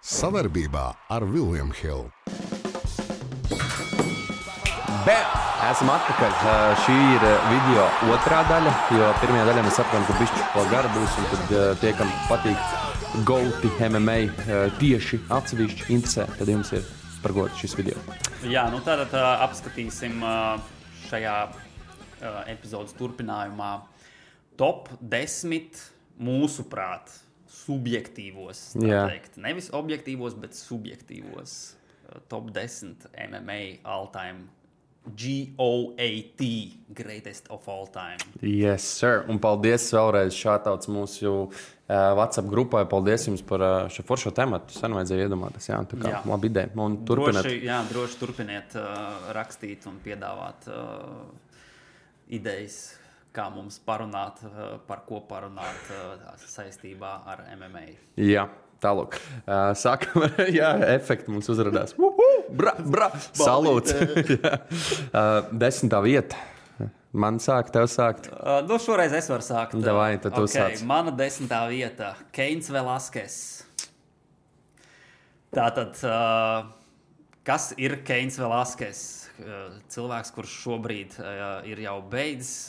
Savarbībā ar William Hill. Esam atpakaļ. Šī ir video otrā daļa, jo pirmajā daļā mēs saprotam, ka bišķi vēl gara būs, un tad tie, kam patīk Gauti MMA tieši atsevišķi interesē, tad jums ir par godu šis video. Jā, nu tātad apskatīsim šajā epizodes turpinājumā top 10 mūsuprāt subjektīvos, tā teikt. Nevis objektīvos, bet subjektīvos top 10 MMA all-time GOAT, greatest of all time. Yes, sir. Un paldies vēlreiz šātauts mūsu WhatsApp grupai. Paldies jums par šo foršo tematu. Sen vajadzēja iedomāties. Jā, tā kā labi ideja. Un turpiniet. Droši turpiniet rakstīt un piedāvāt idejas, kā mums parunāt, par ko parunāt saistībā ar MMA. Jā. Tālāk. Sākam ar efektu mums uzradās. Salūts. 10. vieta. Man sāk, tev sākt. Nu, šoreiz es varu sākt. Davai, tad tu sāc. Mana 10. vieta. Keins Velasquez. Tātad, kas ir Keins Velasquez? Cilvēks, kurš šobrīd ir jau beidzis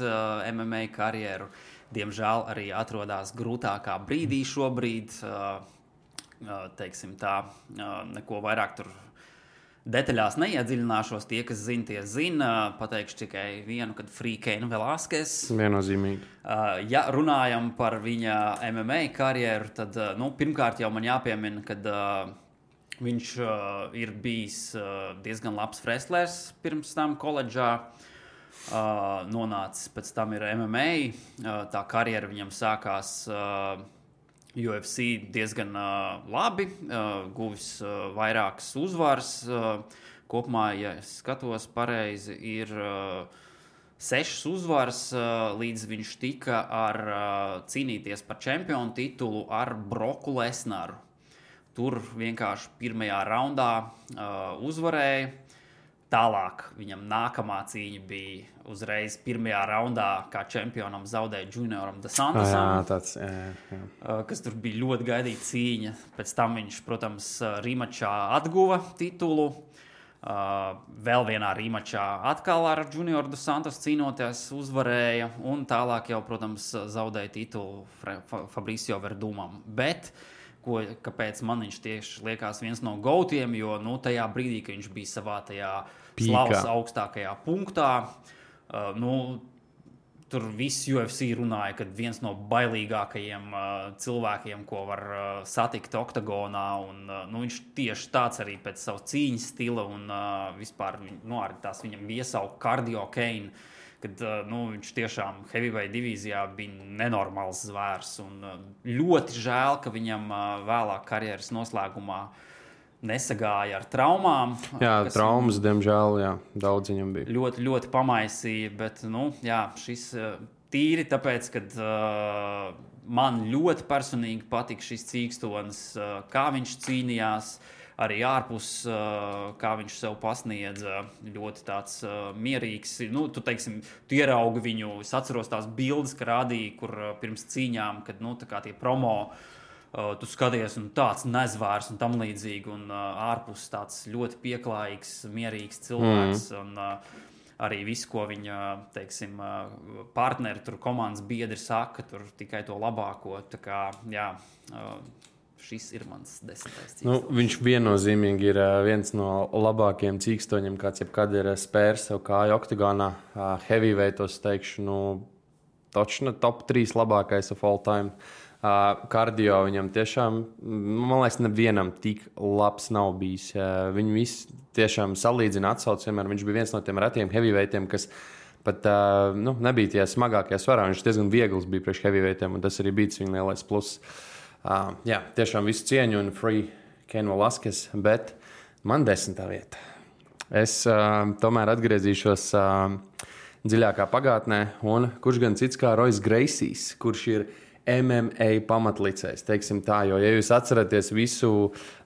MMA karjeru. Diemžēl arī atrodas grūtākā brīdī šobrīd. Teiksim tā, neko vairāk tur detaļās neiedziļināšos. Tie, kas zina, tie zina. Pateikšu tikai vienu, kad Free Keins Velasquez. Viennozīmīgi. Ja runājam par viņa MMA karjeru, tad pirmkārt jau man jāpiemina, kad viņš ir bijis diezgan labs wrestlers pirms tam koledžā. Nonācis pēc tam ir MMA. Tā karjera viņam sākās UFC diezgan labi, guvis vairākas uzvaras. Kopumā, ja es skatos pareizi, ir 6 uzvaras, līdz viņš tika cīnīties par čempionu titulu ar Broku Lesnaru. Tur vienkārši pirmajā raundā uzvarēja. Tālāk viņam nākamā cīņa bija uzreiz pirmajā raundā, kā čempionam zaudēja Junioram Dos Santosam, kas tur bija ļoti gaidīta cīņa. Pēc tam viņš, protams, rīmačā atguva titulu. Vēl vienā rīmačā atkal ar Junioru Dos Santos cīnoties uzvarēja. Un tālāk jau, protams, zaudēja titulu Fabricio Verdumam. Bet kāpēc man viņš tieši liekas viens no gautiem, jo tajā brīdī, kad viņš bija savā tajā slavas augstākajā punktā, tur viss UFC runāja, ka viens no bailīgākajiem cilvēkiem, ko var satikt oktagonā, un viņš tieši tāds arī pēc savas cīņas stila, un vispār arī tās viņam iesauka Cardio Kane, kad viņš tiešām heavyweight divīzijā bija nenormāls zvērs. Un ļoti žēl, ka viņam vēlāk karjeras noslēgumā nesagāja ar traumām. Jā, traumas, diemžēl, daudz viņam bija. Ļoti, ļoti pamaisīja, bet šis tīri tāpēc, kad man ļoti personīgi patika šis cīkstonis, kā viņš cīnījās, arī ārpus, kā viņš sev pasniedza, ļoti tāds mierīgs. Tu ieraugi viņu, es atceros tās bildes, ka rādīja, kur pirms cīņām, kad tā kā tie promo, tu skaties un tāds nezvērs un tam līdzīgi, un ārpus tāds ļoti pieklājīgs, mierīgs cilvēks, un arī viss, ko viņa, teiksim, partneri, tur komandas biedri saka, tur tikai to labāko, tā kā, šis ir mans 10. cīkstonis. Viņš viennozīmīgi ir viens no labākajiem cīkstoņiem, kāds jebkad ir spērs sev kāju oktagonā. Heavyweightos teikšu, točna top 3 labākais of all time. Kardio viņam tiešām, man liekas, nevienam tik labs nav bijis. Viņu visi tiešām salīdzina atsauc, vienmēr viņš bija viens no tiem retiem heavyweightiem, kas pat nebija tie smagākie svarā. Viņš diezgan viegls bija priekš heavyweightiem, un tas arī bija viņa lielais pluss. Tiešām visu cieņu un Free Keins Velasquez, bet man 10. vieta. Es tomēr atgriezīšos dziļākā pagātnē, un kurš gan cits kā Royce Gracies, kurš ir MMA pamatlicējs, teiksim tā, jo, ja jūs atceraties visu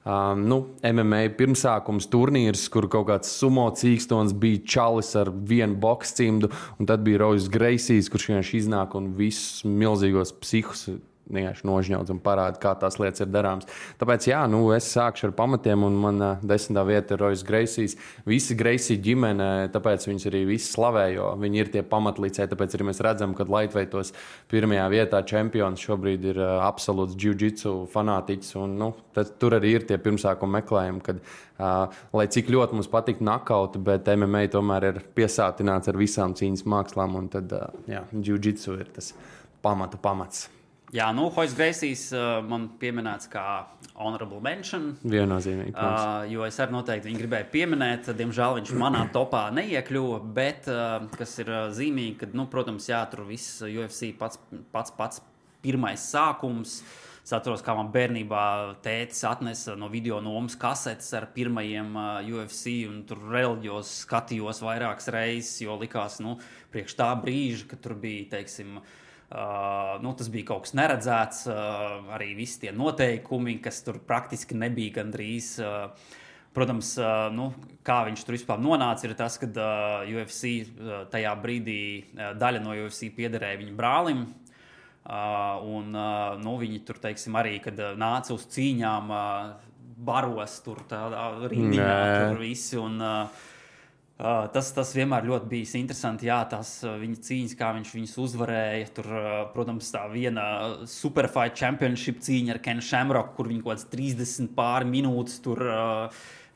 MMA pirmsākums turnīrs, kur kaut kāds sumo cīkstons bija čalis ar vienu bokscimdu, un tad bija Royce Gracies, kurš vienkārši iznāk un visus milzīgos psihus vienkārši nožņaudz un parāda, kā tās lietas ir darāmas. Tāpēc, jā, es sākšu ar pamatiem, un man 10. vieta ir Royce Gracies. Visi Gracie ģimene, tāpēc viņus arī visi slavē, jo viņi ir tie pamatlicēji. Tāpēc arī mēs redzam, ka lightweightos pirmajā vietā čempions šobrīd ir absolūts jiu-jitsu fanātiķis. Un, tur arī ir tie pirmsākuma meklējumi, kad, lai cik ļoti mums patīk nakauti, bet MMA tomēr ir piesātināts ar visām cīņas mākslām, un tad, jiu-jitsu ir tas pamats. Jā, Royce Gracies man pieminēts kā honorable mention. Viennozīmīgi. Jo es arī noteikti viņu gribēju pieminēt. Diemžēl viņš manā topā neiekļuva, bet kas ir zīmīgi, ka, protams, jā, tur viss UFC pats pirmais sākums. Es atceros, kā man bērnībā tētis atnesa no video nomas kasetes ar pirmajiem UFC, un tur reliģijos skatījos vairākas reizes, jo likās, priekš tā brīža, ka tur bija, teiksim, tas bija kaut kas neredzēts, arī visi tie noteikumi, kas tur praktiski nebija gandrīz. Protams, kā viņš tur vispār nonāca, ir tas, ka UFC tajā brīdī daļa no UFC piederēja viņa brālim. Viņi tur, teiksim, arī, kad nāca uz cīņām, baros tur tādā rindiņā, tur visi. Tas vienmēr ļoti bijis interesanti, jā, tās viņa cīņas, kā viņš viņus uzvarēja. Tur, protams, tā viena Superfight Championship cīņa ar Ken Shamrock, kur viņi kaut kāds 30 pāri minūtes tur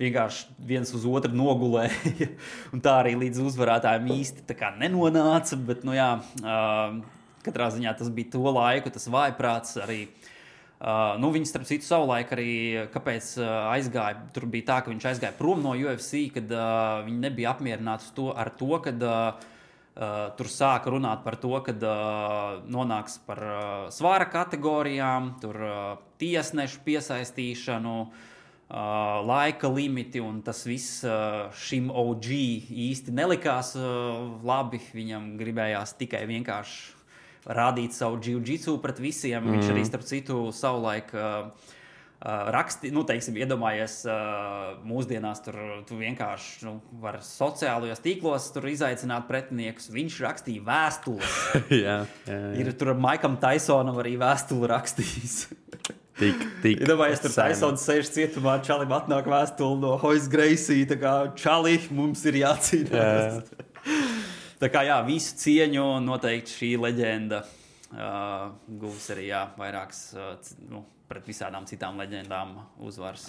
vienkārši viens uz otru nogulēja. Un tā arī līdz uzvarētājiem īsti tā kā nenonāca, bet, katrā ziņā tas bija to laiku, tas vājprāts arī. Viņi, starp citu, savulaik arī, kāpēc aizgāja, tur bija tā, ka viņš aizgāja prom no UFC, kad viņi nebija apmierināti ar to, kad tur sāka runāt par to, kad nonāks par svāra kategorijām, tur tiesnešu piesaistīšanu, laika limiti, un tas viss šim OG īsti nelikās labi. Viņam gribējās tikai vienkārši rādīt savu jiu-jitsu pret visiem. Viņš arī, starp citu, savulaik iedomājies mūsdienās, tu vienkārši var sociālajos tīklos tur izaicināt pretiniekus. Viņš rakstīja vēstules. jā. Ir tur Maikam Tysonam arī vēstuli rakstījis. Iedomājies, tur Tysons sēž cietumā, Čalim atnāk vēstuli no Royce Gracie, tā kā Čali, mums ir jācīnās. Tā kā jā, visu cieņu noteikti šī leģenda guvis arī vairākas pret visādām citām leģendām uzvaras.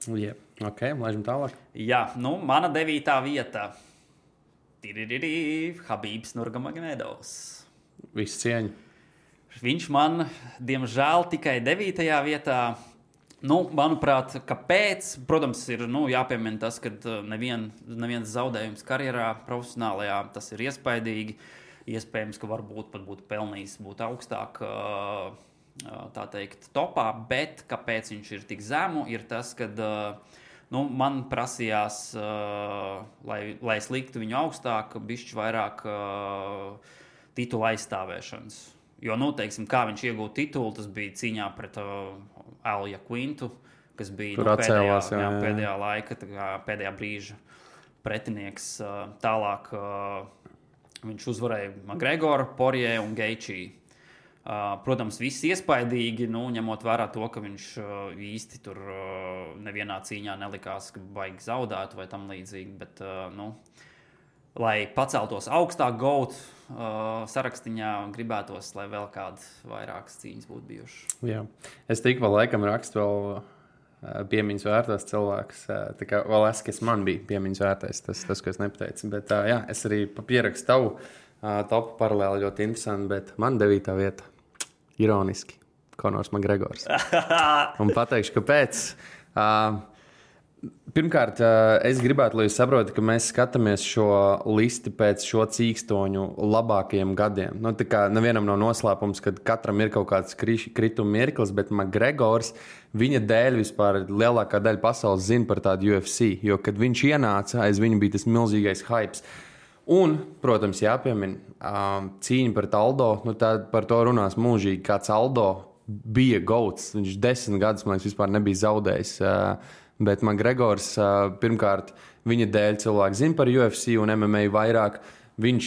Yeah. Ok, laižam tālāk. Jā, mana 9. vieta. Habibs Nurmagomedovs. Visu cieņu. Viņš man, diemžēl, tikai 9. vietā. Manuprāt, kāpēc? Protams, ir jāpiemina tas, ka neviens zaudējums karjerā profesionālajā, tas ir iespaidīgi. Iespējams, ka varbūt pat būtu pelnījis būt augstāk, tā teikt, topā, bet kāpēc viņš ir tik zemu, ir tas, ka man prasījās, lai es liktu viņu augstāk, bišķi vairāk titula aizstāvēšanas. Jo, teiksim, kā viņš iegūta titulu, tas bija cīņā pret Alja Quintu, kas bija pēdējā laika, pēdējā brīža pretinieks. Tālāk viņš uzvarēja McGregoru, Poirier un Gaethje. Protams, viss iespaidīgi, ņemot vērā to, ka viņš īsti tur nevienā cīņā nelikās, ka baigi zaudētu vai tam līdzīgi, bet, lai paceltos augstāk GOAT sarakstiņā, gribētos, lai vēl kādas vairākas cīņas būtu bijušas. Jā. Es tikko laikam rakstu vēl piemiņas vērtās cilvēks. Tā kā vēl es man bija piemiņas vērtais, tas, ko es nepateicu. Bet jā, es arī pierakstu tavu topu paralēli ļoti interesanti, bet man 9. vieta, ironiski, Conors McGregors. Un pateikšu, kāpēc. Pirmkārt, es gribētu, lai jūs saprotat, ka mēs skatāmies šo listi pēc šo cīkstoņu labākajiem gadiem. Tā kā nevienam nav noslēpums, ka katram ir kaut kāds krituma mirklis, bet McGregors, viņa dēļ vispār lielākā daļa pasaules zina par tādu UFC, jo, kad viņš ienāca, aiz viņa bija tas milzīgais hypes. Un, protams, jāpiemina, cīņa pret Aldo, par to runās mūžīgi, kāds Aldo bija GOATs, viņš 10 gadus, man liekas, vispār nebija zaudējis. Bet McGregors, pirmkārt, viņa dēļ cilvēki zina par UFC un MMA vairāk. Viņš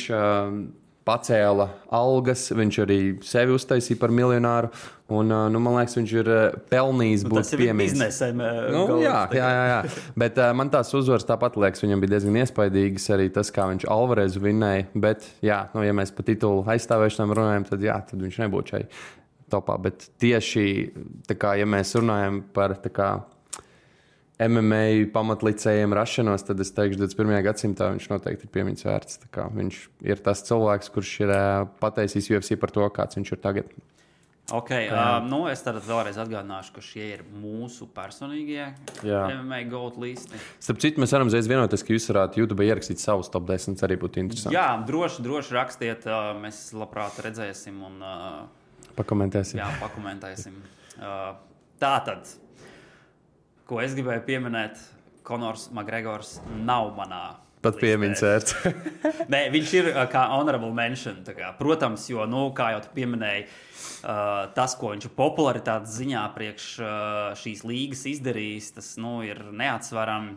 pacēla algas, viņš arī sevi uztaisīja par miljonāru. Un, man liekas, viņš ir pelnījis būt piemīts. Jā. Bet man tās uzvaras tāpat liekas, viņam bija diezgan iespaidīgas arī tas, kā viņš Alvarezu vinnēja. Bet, ja mēs par titulu aizstāvēšanām runājam, tad viņš nebūtu šai topā. Bet tieši, ja mēs runājam par MMA pamatlicējiem rašanos, tad es teikšu, 21. gadsimtā viņš noteikti ir piemiņas vērts. Viņš ir tas cilvēks, kurš ir pateicījis UFC par to, kāds viņš ir tagad. Es tad vēlreiz atgādināšu, ka šie ir mūsu personīgie MMA GOAT listi. Starp citu, mēs varam uzreiz vienoties, ka jūs varētu YouTube ierakstīt savus top 10, arī būtu interesanti. Jā, droši rakstiet, mēs labprāt redzēsim un pakomentēsim. Jā, pakomentēsim. Tātad. Ko es gribēju pieminēt, Konors Makgregors nav manā pat piemiņas vērts. Nē, viņš ir kā honorable mention. Protams, jo, kā jau tu pieminēji, tas, ko viņš popularitātes ziņā priekš šīs līgas izdarījis, tas ir neatsverami.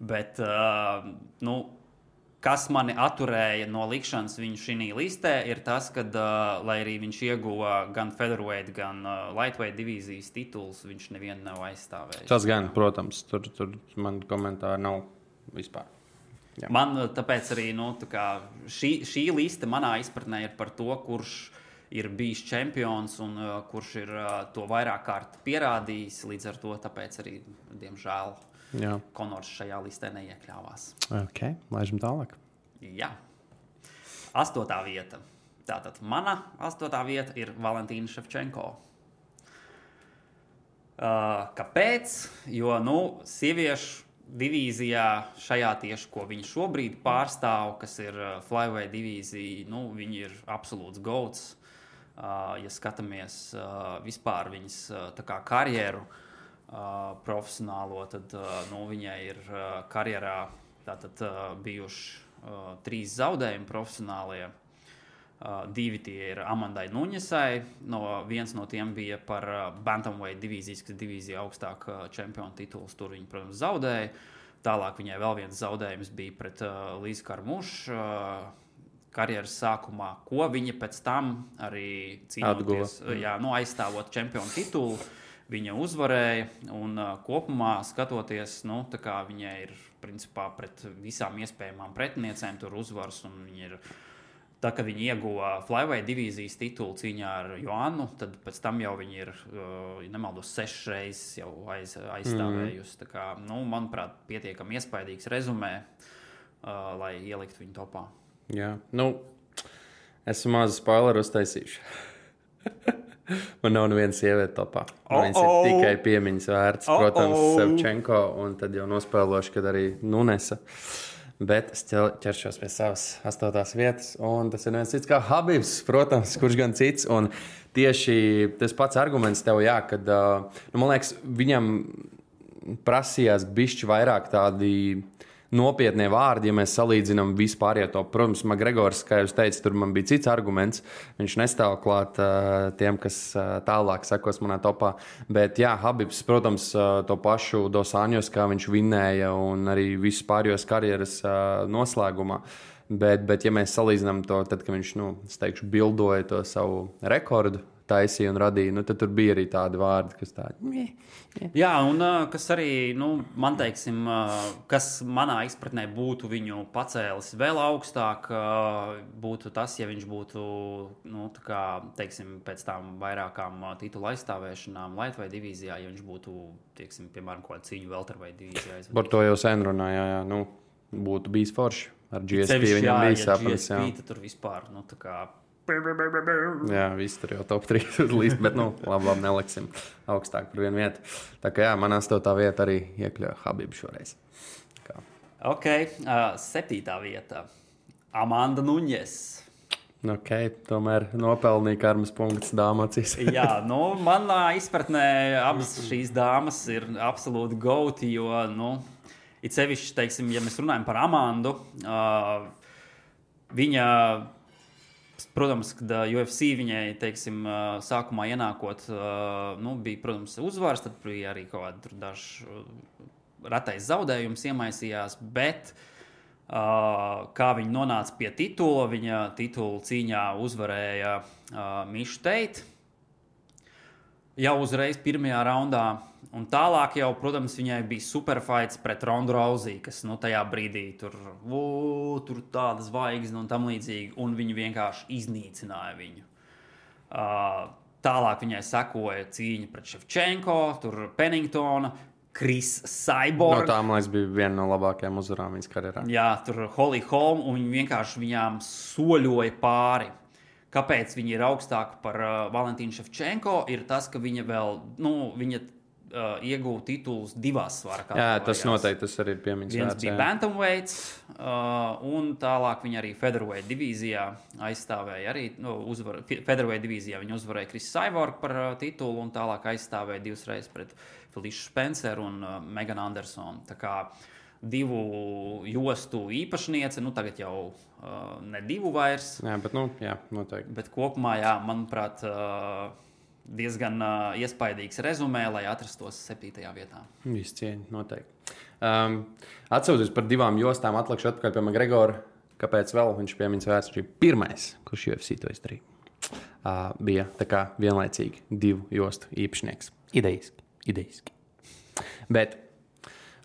Bet, kas mani atturēja no likšanas viņu šī listē, ir tas, ka, lai arī viņš ieguva gan featherweight, gan lightweight divīzijas tituls, viņš nevienu nav aizstāvējis. Tas gan, protams, tur man komentāri nav vispār. Jā. Man tāpēc arī šī liste manā izpratnē ir par to, kurš ir bijis čempions un kurš ir to vairāk kārt pierādījis. Līdz ar to tāpēc arī, diemžēl, Konors šajā listē neiekļāvās. Ok, laižam tālāk. Jā. 8. vieta. Tātad mana 8. vieta ir Valentīna Ševčenko. Kāpēc? Jo, sieviešu divīzijā šajā tieši, ko viņa šobrīd pārstāv, kas ir flyweight divīzija, viņi ir absolūts GOATs. Ja skatāmies vispār viņas karjeru profesionālo, tad viņai ir karjerā bijuši 3 zaudējumi profesionālie. 2 tie ir Amandai Nuņesai. Viens no tiem bija par bantamweight divīzijas, kas divīzija augstāk čempionu tituls. Tur viņa, protams, zaudēja. Tālāk viņai vēl viens zaudējums bija pret Līzu Karmušu karjeras sākumā, ko viņa pēc tam arī cīnoties, aizstāvot čempionu titulu. Viņa uzvarēja un kopumā skatoties, viņai ir principā pret visām iespējamām pretiniecēm tur uzvaras. Un viņa ir, kad viņa ieguva flyweight divīzijas titulu cīņā ar Joannu, tad pēc tam jau viņa ir, nemaldos, 6 reizes jau aizstāvējusi. Manuprāt, pietiekami iespaidīgs rezumē, lai ieliktu viņu topā. Jā, esmu mazu spoileru uztaisījuši. Man nav neviena sieviete topā. Viņas ir tikai piemiņas vērts, protams, Ševčenko, un tad jau nospēlošu, kad arī Nunesa. Bet es ķeršos pie savas 8. vietas, un tas ir neviens cits kā Habibs, protams, kurš gan cits. Un tieši tas pats arguments tev, kad, man liekas, viņam prasījās bišķi vairāk tādi nopietnie vārdi, ja mēs salīdzinām vispār to. Protams, Makgregors, kā jūs teicat, tur man bija cits arguments. Viņš nestāv klāt tiem, kas tālāk sekos manā topā. Bet jā, Habibs, protams, to pašu Dos Anjos, kā viņš vinnēja un arī visu pārējos karjeras noslēgumā. Bet ja mēs salīdzinām to, tad, kad viņš, es teikšu, bildoja to savu rekordu, taisīja un radīja, tad tur bija arī tādi vārdi, kas tādi. Jā, un kas arī, man teiksim, kas manā izpratnē būtu viņu pacēlis vēl augstāk, būtu tas, ja viņš būtu, teiksim, pēc tām vairākām titula aizstāvēšanām lightweight divīzijā, ja viņš būtu, teiksim, piemēram, kaut kādu cīņu welterweight divīzijā. Par to jau sen runāja, būtu bijis forši. Ar GSP viņam bija sapnis. Jā, GSP tur vispār, Jā, viss tur jau top 3 līdz, bet labi, neliksim augstāk par vienu vietu. Tā kā man 8. vieta arī iekļauja Habibu šoreiz. Ok, 7. vieta. Amanda Nuņes. Ok, tomēr nopelnīja karmas punkts dāmacīs. Jā, manā izpratnē abas šīs dāmas ir absolūti gauti, jo, it sevišķi, teiksim, ja mēs runājam par Amandu, viņa... Protams, kad UFC viņai, teiksim, sākumā ienākot, bija, protams, uzvaras, tad bija arī kaut kādi daži ratais zaudējums iemaisījās, bet Kā viņa nonāca pie titula. Viņa titulu cīņā uzvarēja Mišu Teitu jau uzreiz pirmajā raundā. Un tālāk jau, protams, viņai bija superfights pret Rondu Rousey, kas tajā brīdī tur tāda zvaigzne un tam līdzīgi, un viņi vienkārši iznīcināja viņu. Tālāk viņai sekoja cīņa pret Ševčenko, tur Penningtona, Chris Cyborg. No tā, man liekas, bija viena no labākajām uzvarām viņas karjerā. Jā, tur Holly Holm, un viņi vienkārši viņām soļoja pāri. Kāpēc viņa ir augstāka par Valentīnu Ševčenko, ir tas, ka viņa vēl, viņa ieguva titulus divās svara kategorijās. Jā, tas noteikti, tas arī ir piemiņas vērts. Viens bija bantamweights, un tālāk viņa arī featherweight divīzijā aizstāvēja arī, featherweight divīzijā viņa uzvarēja Chris Cyborg par titulu, un tālāk aizstāvēja divas reizes pret Felicia Spenceru un Megan Andersonu. Tā kā divu jostu īpašniece, tagad jau ne divu vairs. Jā, bet, noteikti. Bet kopumā, manuprāt, diezgan iespaidīgs rezumē, lai atrastos 7. vietā. Viss cieņa, noteikti. Atcaucoties par divām jostām, atlikšu atpakaļ pie McGregora. Kāpēc vēl viņš piemiņas vērts? Viņš ir pirmais, kurš UFC to izdarīja. Bija tā kā vienlaicīgi divu jostu īpašnieks. Idejiski. Bet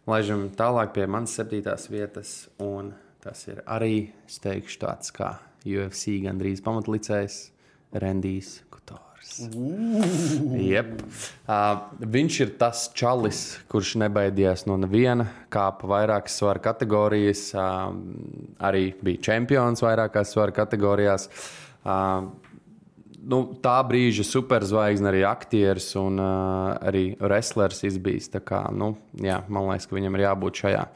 laižam tālāk pie manas 7. vietas, un tas ir arī, es teikšu, tāds kā UFC gandrīz pamatlicējs Rendijs Kutors. Jep. Viņš ir tas čalis, kurš nebaidījās no neviena, kāpa vairākas svara kategorijas, arī bija čempions vairākās svara kategorijās. Tā brīža superzvaigzne, arī aktieris un arī wrestlers izbijis. Tā kā, man liekas, ka viņam ir jābūt šajā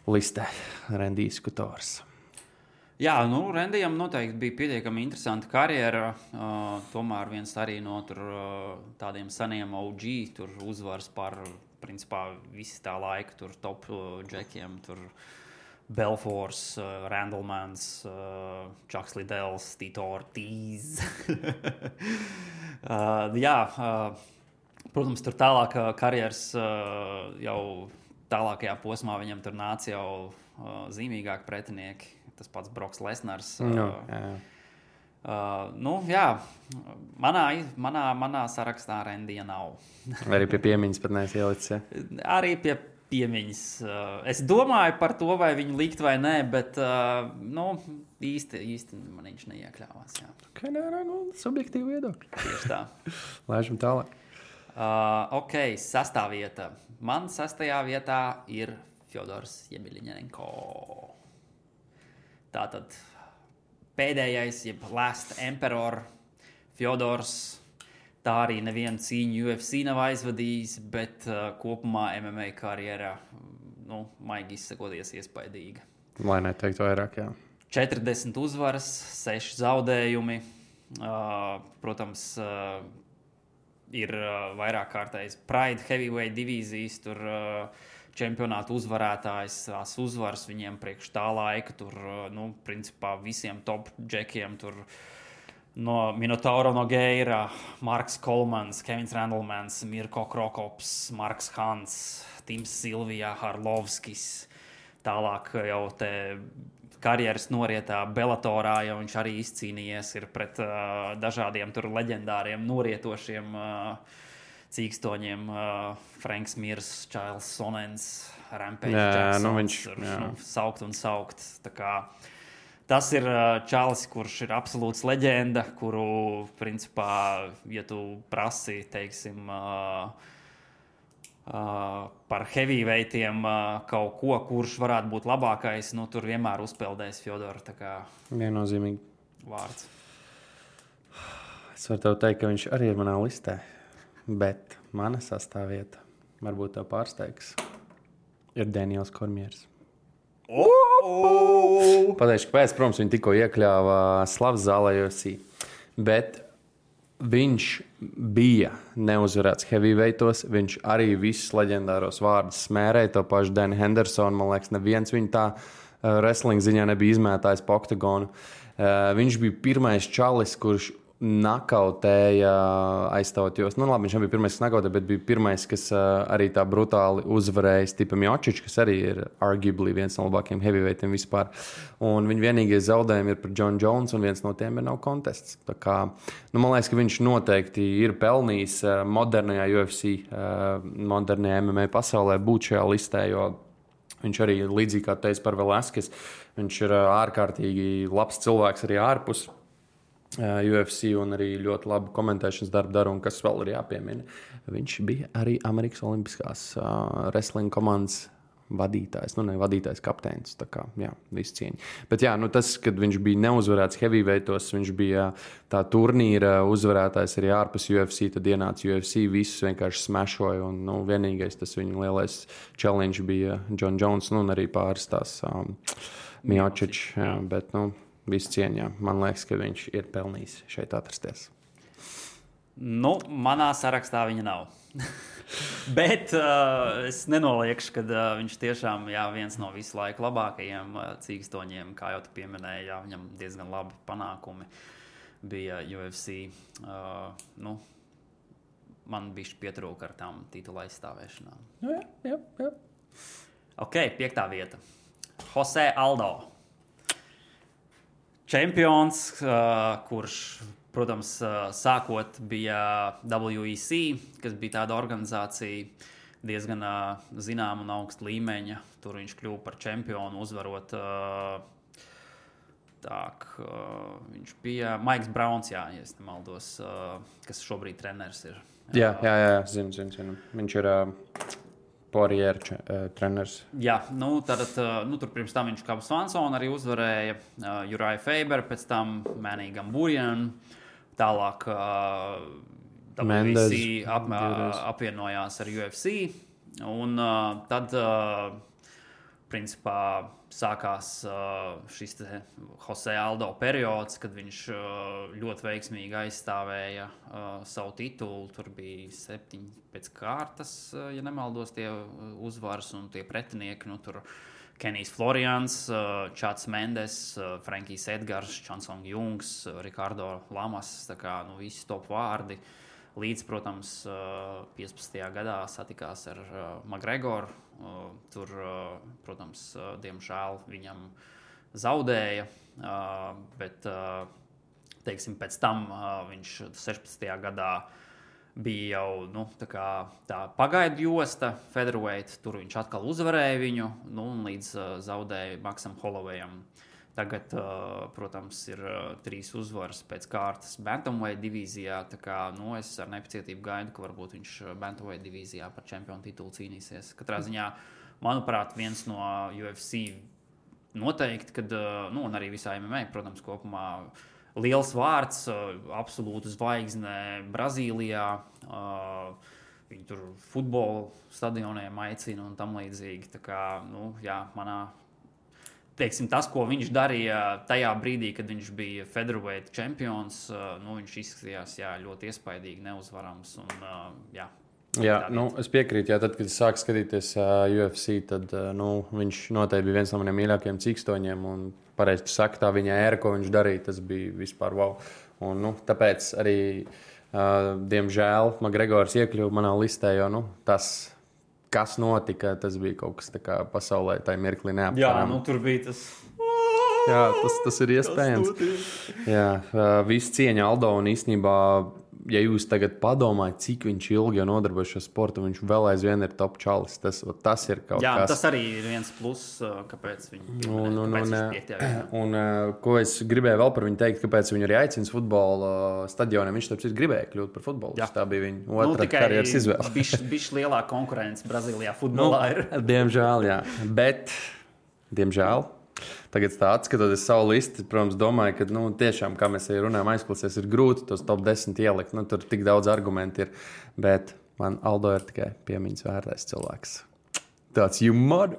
listē. Rendijs Kutors. Jā, Rendijam noteikti bija pietiekami interesanta karjera. Tomēr viens arī no tādiem seniem OG tur uzvars par, principā, visi tā laika tur top džekiem. Tur Belfors, Randlemans, Chucks Liddells, Tito Ortiz. Protams, tur tālāk karjeras jau tālākajā posmā viņam tur nāca jau zīmīgāki pretinieki. Tas pats Broks Lesnars. Manā sarakstā Rendija nav. Arī pie piemiņas pat neesi ielicis, ja? Arī pie piemiņas. Es domāju par to, vai viņu likt vai nē, bet īsti man viņš neiekļāvās. Jā. Subjektīvi viedokļi. Tieši tā. Laižam tālāk. 6. vieta. Man 6. vietā ir Fjodors Jemeliņenko. Tātad pēdējais, jeb Last Emperor Fjodors. Tā arī nevienu cīņu UFC nav aizvadījis, bet kopumā MMA karjerā, maigi izsakoties, iespaidīga. Lai neteiktu vairāk, jā. 40 uzvaras, 6 zaudējumi. Protams, ir vairāk kārtējs Pride Heavyweight divīzijas, tur čempionātu uzvarētājs, tās uzvaras viņiem priekš tā laika, tur, principā visiem top džekiem, tur no Minotauro Nogueira, Marks Kolmans, Kevins Randlemans, Mirko Krokops, Marks Hans, Tims Silvija, Harlovskis, tālāk jau te karjeras norietā Bellatorā, jo viņš arī izcīnījies ir pret dažādiem tur leģendāriem norietošiem cīkstoņiem, Franks Mirs, Čails Sonens, Rampage Jacksons, saukt un saukt. Tā kā tas ir čalis, kurš ir absolūts leģenda, kuru, principā, ja tu prasi, teiksim, par heavyweightiem kaut ko, kurš varētu būt labākais, tur vienmēr uzpeldēs Fjodor. Tā kā viennozīmīgi vārds. Es varu tev teikt, ka viņš arī ir manā listē. Bet mana sastāvvieta, varbūt tev pārsteigs, ir Daniels Kormiers. Pateikšu, kāpēc, protams, viņi tikko iekļāva slavas zālē UFC. Bet viņš bija neuzvarēts heavyweightos, viņš arī visus leģendāros vārdus smērēja, to pašu Dani Hendersonu, man liekas, neviens viņu tā wrestling ziņā nebija izmētājis pa oktagonu. Viņš bija pirmais čalis, kurš nakautēja aizstāvot, jo, nu, labi, viņš nebija pirmais, kas nakautēja, bet bija pirmais, kas arī tā brutāli uzvarēja Stipe Miocic, kas arī ir arguably viens no labākajiem heavyweightiem vispār. Un viņa vienīgie zaudējumi ir par John Jones, un viens no tiem ir nav kontests. Tā kā, nu, man liekas, ka viņš noteikti ir pelnījis modernajā UFC, modernajā MMA pasaulē būt šajā listē, jo viņš arī līdzīgi kā teica par Velasquez, viņš ir ārkārtīgi labs cilvēks arī ārpus UFC un arī ļoti labu komentēšanas darbu dara, un kas vēl ir jāpiemina. Viņš bija arī Amerikas Olimpiskās wrestling komandas vadītājs, nu ne vadītājs, kapteinis, tā kā, jā, visu cieņu. Bet jā, nu tas, kad viņš bija neuzvarēts heavyweightos, viņš bija tā turnīra uzvarētājs arī ārpus UFC, tad ienāca UFC, visus vienkārši smešoja, un, nu, vienīgais tas viņa lielais challenge bija John Jones, nu, un arī pāris tās Miocic, jā, bet, nu, visu cieņā. Man liekas, ka viņš ir pelnījis šeit atrasties. Nu, manā sarakstā viņa nav. Bet es nenoliekšu, ka viņš tiešām viens no visu laiku labākajiem cīkstoņiem, kā jau tu pieminēji, viņam diezgan labi panākumi bija UFC. Nu, man bišķi pietrūka ar tām titula aizstāvēšanām. Jā. Ok, 5. vieta. Jose Aldo. Čempions, kurš, protams, sākot bija WEC, kas bija tāda organizācija diezgan zināma un augsta līmeņa. Tur viņš kļuva par čempionu, uzvarot. Viņš bija Maiks Browns, ja es nemaldos, kas šobrīd treneris ir. Jā, zinu. Viņš ir Poirier treneris. Jā, nu, tad, tur pirms tam viņš kā Swanson arī uzvarēja Uriah Faber, pēc tam Manny Gamburian, tālāk WEC apvienojās ar UFC, un tad, principā, sākās šis Jose Aldo periods, kad viņš ļoti veiksmīgi aizstāvēja savu titulu. Tur bija 7 pēc kārtas, ja nemaldos, tie uzvaras un tie pretinieki. Nu, tur Kenijs Florians, Čats Mendes, Frankijs Edgars, Chansong Jungs, Ricardo Lamas, tā kā, nu, visi top vārdi. Līdz, protams, 15. gadā satikās ar McGregoru. Tur, protams, diemžēl viņam zaudēja, bet, teiksim, pēc tam viņš 16. gadā bija jau, nu, tā pagaidu josta featherweight, tur viņš atkal uzvarēja viņu, nu, un līdz zaudēja Maxam Hollowayam. Tagad, protams, ir 3 uzvaras pēc kārtas bantamweight divīzijā, tā kā, nu, es ar nepacietību gaidu, ka varbūt viņš bantamweight divīzijā par čempionu titulu cīnīsies. Katrā ziņā, manuprāt, viens no UFC noteikti, kad, nu, un arī visā MMA, protams, kopumā liels vārds, absolūta zvaigzne Brazīlijā, viņi tur futbola stadioniem aicina un tam līdzīgi, tā kā, nu, jā, manā teiksim, tas, ko viņš darīja tajā brīdī, kad viņš bija featherweight čempions, nu, viņš izskatījās ļoti iespaidīgi, neuzvarams. Un, jā, nu, es piekrītu, tad, kad es sāku skatīties UFC, tad nu, viņš noteikti bija viens no maniem mīļākajiem cīkstoņiem. Un pareizi tu saki, tā viņa ēra, ko viņš darīja, tas bija vispār wow. Un, nu, tāpēc arī, diemžēl, McGregors iekļuva manā listē, jo nu, tas, kas notika, tas bija kaut kas tā kā pasaulē, tā mirklī neaptverami. Jā, nu tur bija tas. Jā, tas ir iespējams. Jā, viss cieņa Aldo, un īstenībā, ja jūs tagad padomājat, cik viņš ilgi jau nodarbojas šo sportu, viņš vēl aizvien ir top čalis. Tas ir kaut kas. Jā, tas arī ir viens plus, kāpēc viņš Un ko es gribēju vēl par viņu teikt, kāpēc viņu arī aicina futbola stadioniem. Viņš tāpēc gribēja kļūt par futbolistu. Tā bija viņa otra karjeras izvēle. Bišķi lielāka konkurence Brazīlijā futbolā ir. Diemžēl, jā. Bet, diemžēl, tagad tā atskatoties savu listi, protams, domāju, ka, nu, tiešām, kā mēs arī runājam, aizklasies, ir grūti tos top 10 ielikt. Nu, tur tik daudz argumentu ir, bet man Aldo ir tikai piemiņas vērtais cilvēks. Tāds, you mud,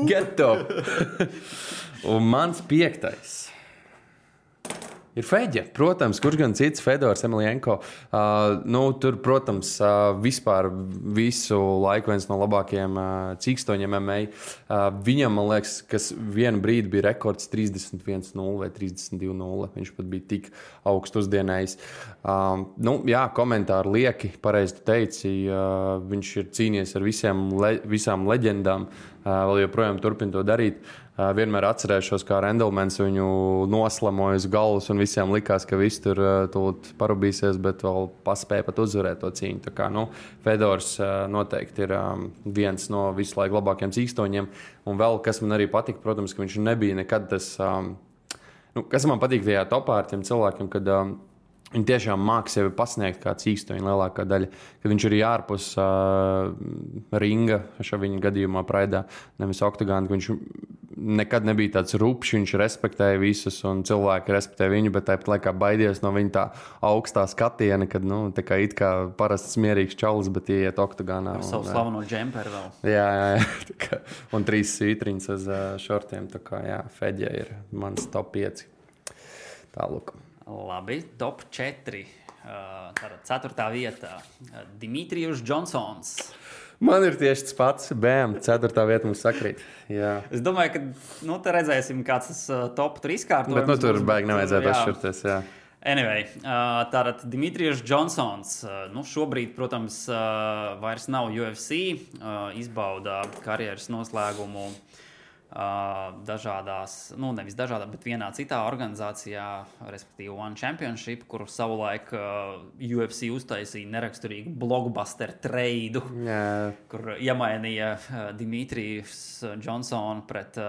get up! Un mans 5. Ir Feģe, protams, kurš gan cits, Fedors, Emelienko. Tur, protams, vispār visu laiku viens no labākajiem cīkstoņiem MMA. Viņam, man liekas, kas vienu brīdi bija rekords 31-0 vai 32-0. Viņš pat bija tik augstu uzdienējis. Komentāri lieki, pareizi tu teici. Viņš ir cīnījies ar visām leģendām. Vēl joprojām turpina to darīt. Vienmēr atcerēšos, kā Rendelmans viņu noslamoja uz galvas un visiem likās, ka viss tur tūlīt parubīsies, bet vēl paspēja pat uzvarēt to cīņu. Tā kā, Fedors noteikti ir viens no visu laiku labākajiem cīkstoņiem. Un vēl, kas man arī patika, protams, ka viņš nebija nekad tas, kas man patīk tajā topā ar tiem cilvēkiem, kad viņi tiešām māca sevi pasniegt kā cīkstoņi lielākā daļa. Kad viņš ir ārpus ringa, šajā gadījumā Praidā, nevis oktagāna, viņš nekad nebija tāds rupšs, viņš respektēja visus un cilvēki respektēja viņu, bet tāpat laikā baidies no viņa tā augstā skatiena, kad tā kā it kā parasts mierīgs čalis, bet ieiet oktagānā. Ar savu slaveno džemperu vēl. Jā. Un 3 svītriņas uz šortiem. Tā kā, Feģe ir mans top 5. Tālūk. Labi, top 4. Tātad 4. vietā Dimitrijus Džonsons. Man ir tieši tas pats. Bēm, 4. vieta mums sakrīt. Jā. Es domāju, ka te redzēsim, kāds tas top 3 kārtojums. Bet tur baigi nevajadzētu atšķirties. Jā. Anyway, tātad Dimitrijus Džonsons. Šobrīd, protams, vairs nav UFC. Izbauda karjeras noslēgumu dažādās, nevis dažādās, bet vienā citā organizācijā, respektīvi One Championship, kur savulaik UFC uztaisīja neraksturīgu blockbuster treidu, kur iemainīja Dimitrijus Džonsonu pret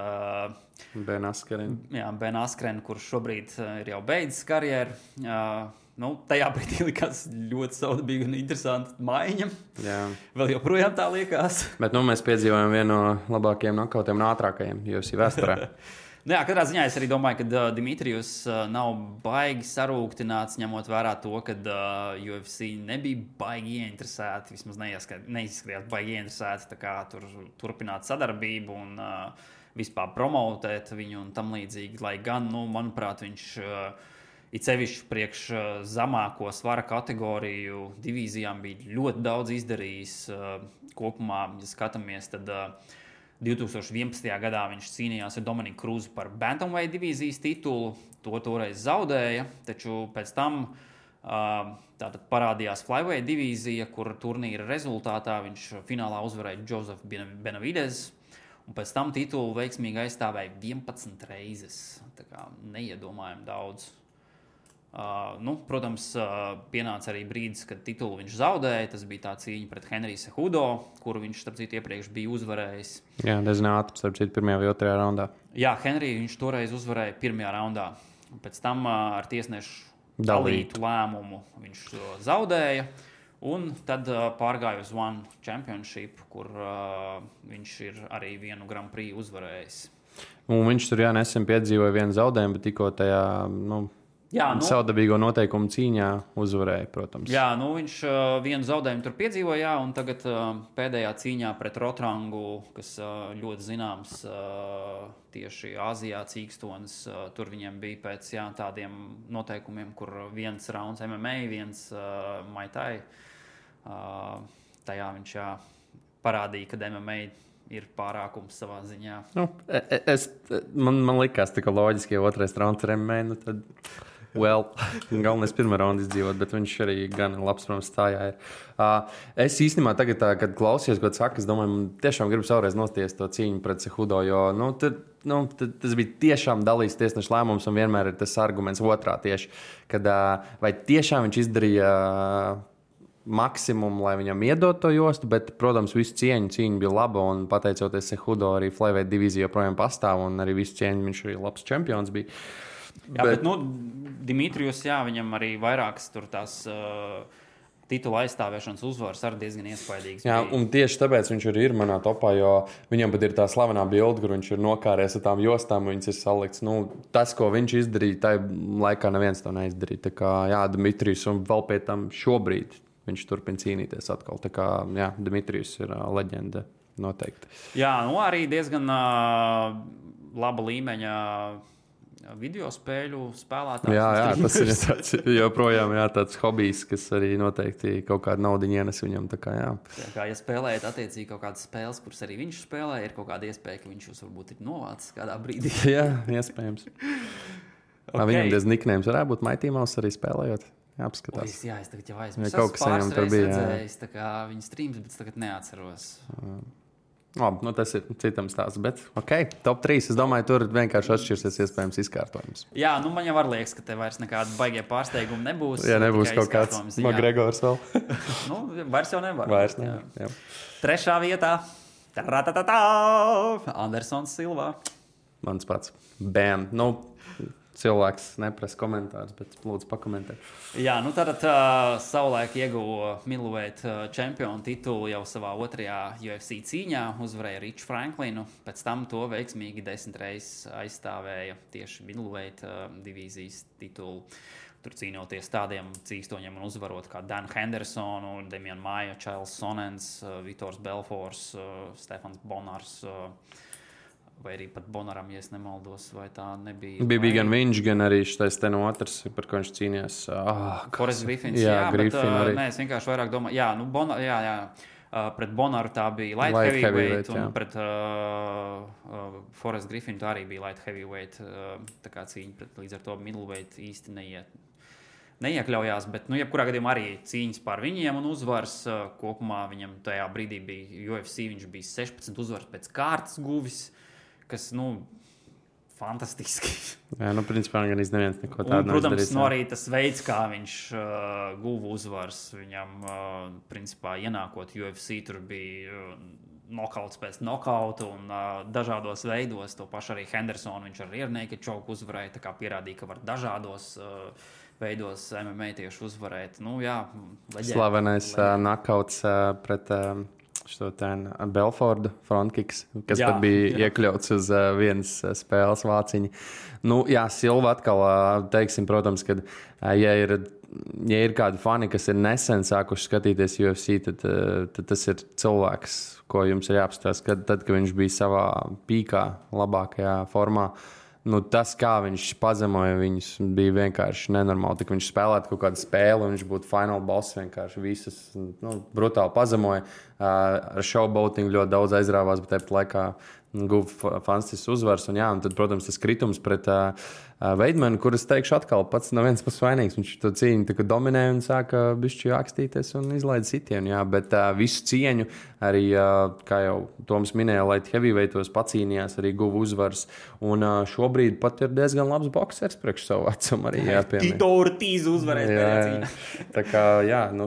Ben Askrenu. Ben Askrenu, kurš šobrīd ir jau beidzis karjeru. Tajā brīdī likās ļoti saudabīga un interesanta maiņa. Jā. Vēl joprojām tā liekas. Bet mēs piedzīvojam vienu no labākajiem nokautiem un ātrākajiem UFC vēsturē. Katrā ziņā es arī domāju, ka Dimitrijus nav baigi sarūktināts, ņemot vērā to, ka UFC nebija baigi ieinteresēti, vismaz neizskatījās baigi ieinteresēti, tā kā turpināt sadarbību un vispār promotēt viņu un tam līdzīgi. Lai gan, manuprāt, viņš it sevišķi priekš zemāko svara kategoriju divīzijām bija ļoti daudz izdarījis. Kopumā, ja skatāmies, tad 2011. gadā viņš cīnījās ar Dominiku Krūzu par Bantamweight divīzijas titulu. To toreiz zaudēja, taču pēc tam tātad parādījās Flyweight divīzija, kur turnīra rezultātā viņš finālā uzvarēja Joseph Benavides. Un pēc tam titulu veiksmīgi aizstāvēja 11 reizes. Tā kā neiedomājami daudz. Protams, pienāca arī brīdis, kad titulu viņš zaudēja. Tas bija tā cīņa pret Henriju Cejudo, kuru viņš, starp citu, iepriekš bija uzvarējis. Jā, diezgan ātri, starp citu, 1. vai 2. raundā. Jā, Henriju viņš toreiz uzvarēja 1. raundā. Pēc tam ar tiesnešu dalītu lēmumu viņš zaudēja. Un tad pārgāja uz One Championship, kur viņš ir arī vienu Grand Prix uzvarējis. Un viņš tur nesen piedzīvoja vienu zaudējumu, bet tikko tajā saudabīgo noteikumu cīņā uzvarēja, protams. Jā, viņš vienu zaudējumu tur piedzīvoja, un tagad pēdējā cīņā pret Rotrangu, kas ļoti zināms tieši Āzijā cīkstonis, tur viņiem bija pēc tādiem noteikumiem, kur viens rauns MMA, viens Muay Thai. Tajā viņš parādīja, ka MMA ir pārākums savā ziņā. Man likās tā, ka loģiski, ja otrais rauns ir MMA, tad galvenais pirmā raunda izdzīvot, bet viņš arī gan labs, protams, stājā ir. Es īstenībā tagad, kad klausījos, ko saka, es domāju, man tiešām gribu savreiz nosties to cīņu pret Cejudo, jo tas bija tiešām dalīts tiesneša lēmums, un vienmēr ir tas arguments otrā tieši, kad vai tiešām viņš izdarīja maksimumu, lai viņam iedot to jostu, bet, protams, visu cīņa bija laba, un pateicoties Cejudo arī Flyweight divīzija joprojām pastāv, un arī visu cieņu viņš arī labs čempions bija. Jā, bet Dimitrijus, viņam arī vairākas tur tās titula aizstāvēšanas uzvaras arī diezgan iespaidīgas. Jā, un tieši tāpēc viņš arī ir manā topā, jo viņam pat ir tā slavenā bilde, kur viņš ir nokāries ar tām jostām, viņas ir salikts. Tas, ko viņš izdarīja, tajā laikā neviens to neizdarīja. Tā kā, Dimitrijus, un vēl pie tam šobrīd viņš turpina cīnīties atkal. Tā kā, Dimitrijus ir leģenda noteikti. Jā, arī diezgan laba līmeņa video spēļu spēlētājs. Jā, tas ir tāds, joprojām tāds hobijs, kas arī noteikti kaut kādu naudu ienes viņam. Ja spēlējat attiecīgi kaut kādas spēles, kuras arī viņš spēlē, ir kaut kāda iespēja, ka viņš jūs varbūt ir novācis kādā brīdī. Jā, iespējams. Viņam diezgan niknējums varētu būt Mighty Mouse arī spēlējot. Jāapskatās. Es tagad jau aizmirsu. Kaut kas viņam tur bija. Redzējis, viņa streams, bet tagad neatceros. Labi, tas ir citam stāsts, bet top 3. Es domāju, tur vienkārši atšķirsies iespējams izkārtojums. Jā, man jau liekas, ka te vairs nekāda baigie pārsteigumi nebūs. Jā, nebūs kaut kāds McGregors vēl. Vairs jau nevar. Vairs nevar, jā. 3. vietā. Andersons Silva. Mans pats. Bam. Cilvēks neprasa komentārus, bet lūdzu pakomentēt. Jā, tātad savulaik ieguva middleweight čempionu titulu jau savā 2. UFC cīņā, uzvarēja Riču Franklinu, pēc tam to veiksmīgi 10 reizes aizstāvēja tieši middleweight divīzijas titulu. Tur cīnoties tādiem cīkstoņiem un uzvarot kā Dan Hendersonu, Demian Maia, Charles Sonens, Vitors Belfors, Stefans Bonars, vai arī pat Bonaram, ja es nemaldos, vai tā nebija. Bija gan viņš, gan arī šis ten otrs, par ko viņš cīnījās. Forrest Griffins, Griffin arī. Nē, es vienkārši vairāk domāju, pret Bonaru tā bija light heavyweight, un pret Forrest Griffinu tā arī bija light heavyweight, tā kā cīņa, līdz ar to middleweight īsti neiekļaujās, bet, jebkurā gadījumā arī cīņas par viņiem un uzvaras. Kopumā viņam tajā brīdī bija UFC, viņš bija 16 uzvaras pēc kārtas guvis, kas, fantastiski. Jā, principā gan neviens neko tādu neizdarīs. Protams, arī tas veids, kā viņš guva uzvaras, viņam, principā, ienākot UFC, tur bija nokauts pēc nokauta un dažādos veidos. To pašu arī Hendersonu, viņš ar rear naked choke uzvarēja, tā kā pierādīja, ka var dažādos veidos MMA tieši uzvarēt. Slavenais nokauts pret Belfordu frontkiks, kas pat bija iekļauts uz vienas spēles vāciņa. Silva atkal, teiksim, protams, ka ja ir kādi fani, kas ir nesen sākuši skatīties UFC, tad tas ir cilvēks, ko jums ir jāapstāsta, kad viņš bija savā pīkā, labākajā formā. Tas, kā viņš pazemoja viņus, bija vienkārši nenormāli. Tik viņš spēlētu kaut kādu spēli, un viņš būtu fināla boss, vienkārši visas brutāli pazemoja. Ar showboatingu ļoti daudz aizrāvās, bet tāpat laikā guva fantastisks uzvars. Un tad, protams, tas kritums pret Veidmanu, kuras teikšu atkal pats no viens puses vainīgs. Viņš to cīņu dominēja un sāka bišķi akstīties un izlaida sitienu. Bet visu cieņu arī, kā jau Toms minēja, light heavyweightos pacīnījās, arī guva uzvars. Un šobrīd pat ir diezgan labs boksers priekš savu vecumu arī jāpiemina. Tito Ortiz uzvarēs tajā cīņā. Tā kā,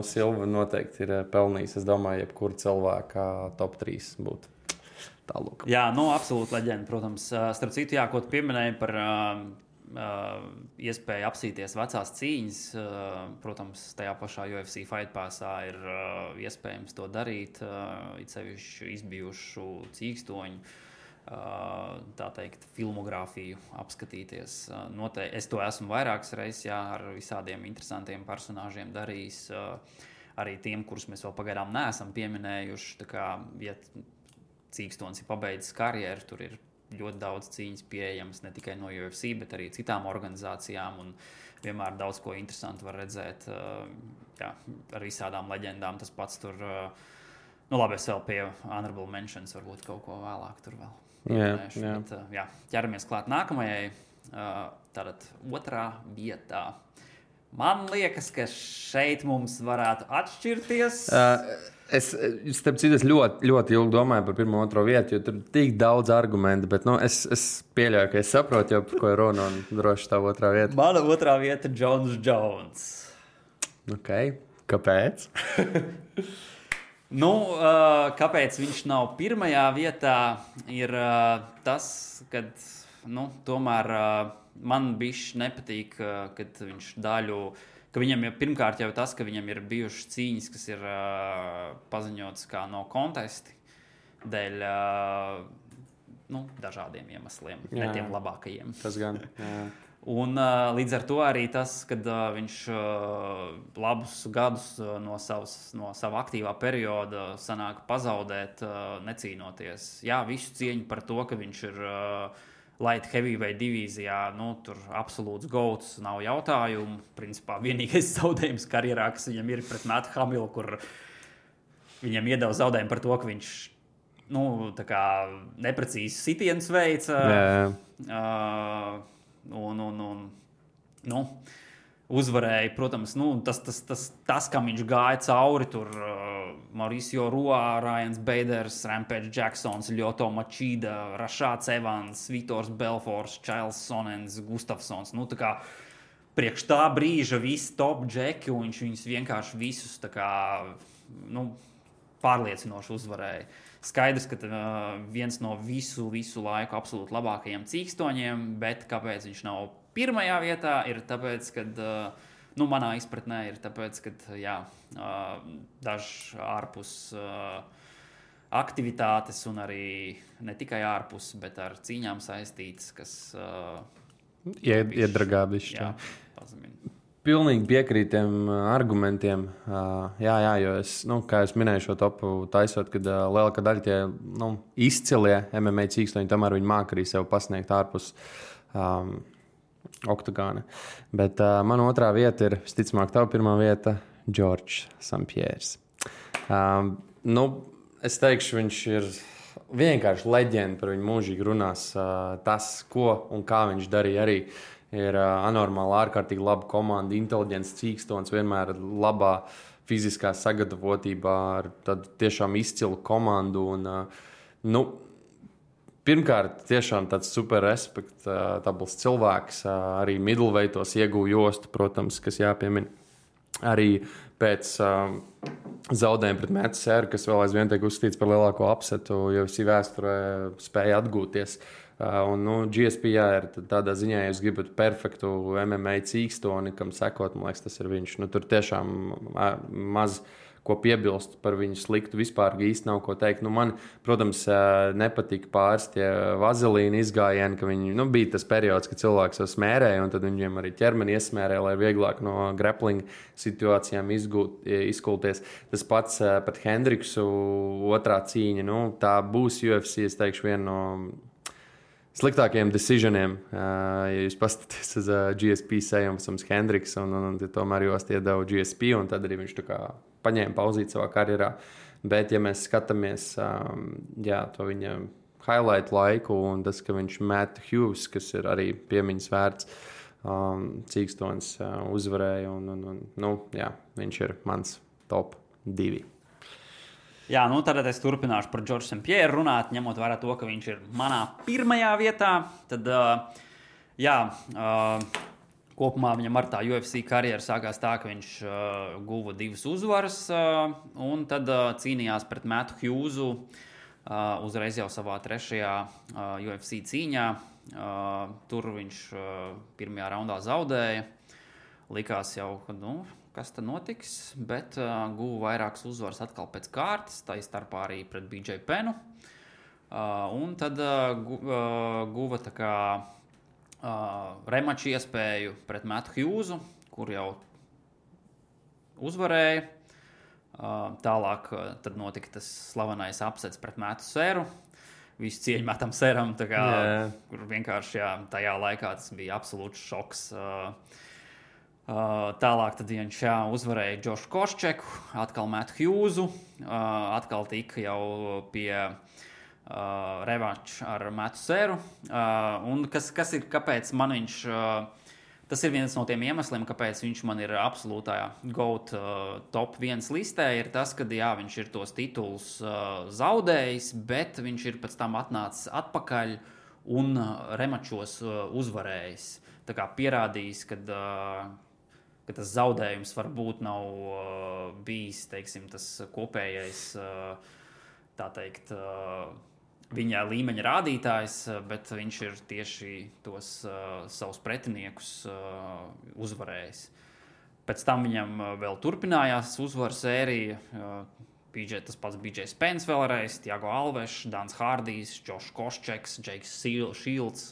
Silva noteikti ir pelnījis, es domāju, jebkura cilvēka top 3 būtu. Tālūk. Jā, absolūti leģenda, protams. Starp citu, ko tu pieminēji par iespēju apsīties vecās cīņas. Protams, tajā pašā UFC Fight Passā ir iespējams to darīt, it sevišķi izbijušu cīkstoņu, tā teikt, filmogrāfiju apskatīties. Es to esmu vairākas reizes ar visādiem interesantiem personāžiem darījis, arī tiem, kurus mēs vēl pagaidām neesam pieminējuši. Tā kā, ja cīkstons ir pabeidzis karjeru, tur ir ļoti daudz cīņas pieejamas ne tikai no UFC, bet arī citām organizācijām, un vienmēr daudz ko interesantu var redzēt ar visādām leģendām. Tas pats tur, labi, es vēl pie honorable mentions varbūt kaut ko vēlāk tur vēl pieminēšu. Bet, ķeramies klāt nākamajai, tātad 2. vietā. Man liekas, ka šeit mums varētu atšķirties. Es ļoti, ļoti ilgi domāju par 1. un 2. vietu, jo tur ir tik daudz argumentu, bet es pieļauju, ka es saprotu, jau par ko ir runa, un droši tā 2. vieta. Mana 2. vieta ir Jones. Kāpēc? Kāpēc viņš nav 1. vietā, ir tas, ka tomēr man bišķi nepatīk, kad viņš daļu. Ka viņam ir pirmkārt jau tas, ka viņam ir bijušas cīņas, kas ir paziņotas kā no kontesti dēļ dažādiem iemesliem, ne tiem labākajiem. Tas gan. Un līdz ar to arī tas, kad viņš labus gadus no sava aktīvā perioda sanāk pazaudēt, necīnoties. Jā, visu cieņu par to, ka viņš ir light heavyweight divīzijā, tur absolūts gauts, nav jautājumu. Principā vienīgais zaudējums karjerā, kas viņam ir pret Mattu Hamilu, kur viņam iedeva zaudējumu par to, ka viņš tā kā neprecīzi sitienus veica. Uzvarēja, protams, tas, kam viņš gāja cauri, tur Mauricio Rua, Ryans Baders, Rampage Jacksons, Lyoto Machida, Rashāds Evans, Vitors Belfors, Čails Sonens, Gustafsons. Tā kā priekš tā brīža visi top džeki, un viņš viņus vienkārši visus tā kā, pārliecinoši uzvarēja. Skaidrs, ka viens no visu laiku absolūti labākajiem cīkstoņiem, bet kāpēc viņš nav pirmajā vietā, ir tāpēc, ka, manā izpratnē ir tāpēc, ka, dažs ārpus aktivitātes un arī ne tikai ārpus, bet ar cīņām saistītas, kas iedragā bišķi. Jā, pazemina. Pilnīgi piekrīt tiem argumentiem. Jo es, kā es minēju šo topu taisot, kad lielākā daļa tie izcilie MMA cīkstoņi, tomēr viņi māk arī sev pasniegt ārpus oktagāna. Bet mana otrā vieta ir, visticamāk, tava pirmā vieta, Georges St-Pierres. Es teikšu, viņš ir vienkārši leģenda, par viņu mūžīgi runās. Tas, ko un kā viņš darīja arī. Ir anormāli, ārkārtīgi laba komanda, inteliģents cīkstons, vienmēr labā fiziskā sagatavotībā, ar tādu tiešām izcilu komandu. Un, pirmkārt, tiešām tāds super respektabls cilvēks, arī middleweightos iegūja jostu, protams, kas jāpiemina. Arī pēc zaudējuma pret Mattu Serru, kas vēl aizvien tiek uzskatīts par lielāko upsetu, jo visi vēsturē spēja atgūties. GSP ir tādā ziņā, ja jūs gribat perfektu MMA cīkstoni, kam sekot, man liekas, tas ir viņš. Tur tiešām maz ko piebilst par viņu sliktu. Vispār īsti nav ko teikt. Man, protams, nepatika pāris tie vazelīna izgājieni, ka viņi, bija tas periods, kad cilvēks jau smērēja, un tad viņiem arī ķermeni iesmērēja, lai vieglāk no grappling situācijām izkulties. Tas pats pat Hendriksu otrā cīņa, tā būs UFC, es teikšu, viena no sliktākajiem decisioniem, ja jūs paskatāties uz GSP sejums Hendriks, un tomēr jūs iedeva GSP, un tad arī viņš tā kā paņēma pauzīt savā karjerā. Bet, ja mēs skatāmies to viņa highlight laiku, un tas, ka viņš Matt Hughes, kas ir arī piemiņas vērts cīkstons, uzvarēja, viņš ir mans top 2. Jā, tad es turpināšu par Georgesu St-Pierres runāt, ņemot vērā to, ka viņš ir manā pirmajā vietā. Tad, kopumā viņam ar tā UFC karjeru sākās tā, ka viņš guva 2 uzvaras, un tad cīnījās pret Mattu Hughesu uzreiz jau savā 3. UFC cīņā. Tur viņš pirmajā raundā zaudēja. Likās jau, ka, kas tad notiks, bet guva vairākas uzvaras atkal pēc kārtas, tā starpā arī pret BJ Pennu. Un tad guva tā kā remaču iespēju pret Mattu Hughesu, kur jau uzvarēja. Tālāk tad notika tas slavenais upsets pret Mattu Serru. Visu cieņu Mattam Serram, kur vienkārši tajā laikā tas bija absolūts šoks. Tālāk tad viņš uzvarēja Džošu Koščeku, atkal Mattu Hughesu, atkal tika jau pie revanš ar Mattu Serru. Un kas ir, kāpēc man viņš, tas ir viens no tiem iemesliem, kāpēc viņš man ir absolūtā GOAT top 1 listē, ir tas, ka viņš ir tos titulus zaudējis, bet viņš ir pēc tam atnācis atpakaļ un remačos uzvarējis. Tā kā pierādījis, ka tas zaudējums varbūt nav bijis, teiksim, tas kopējais, tā teikt, viņa līmeņa rādītājs, bet viņš ir tieši tos savus pretiniekus uzvarējis. Pēc tam viņam vēl turpinājās uzvaru sērija, Tas pats BJ Spence vēlreiz, Tiago Alves, Dans Hardijs, Josh Koščeks, Jakes Shields.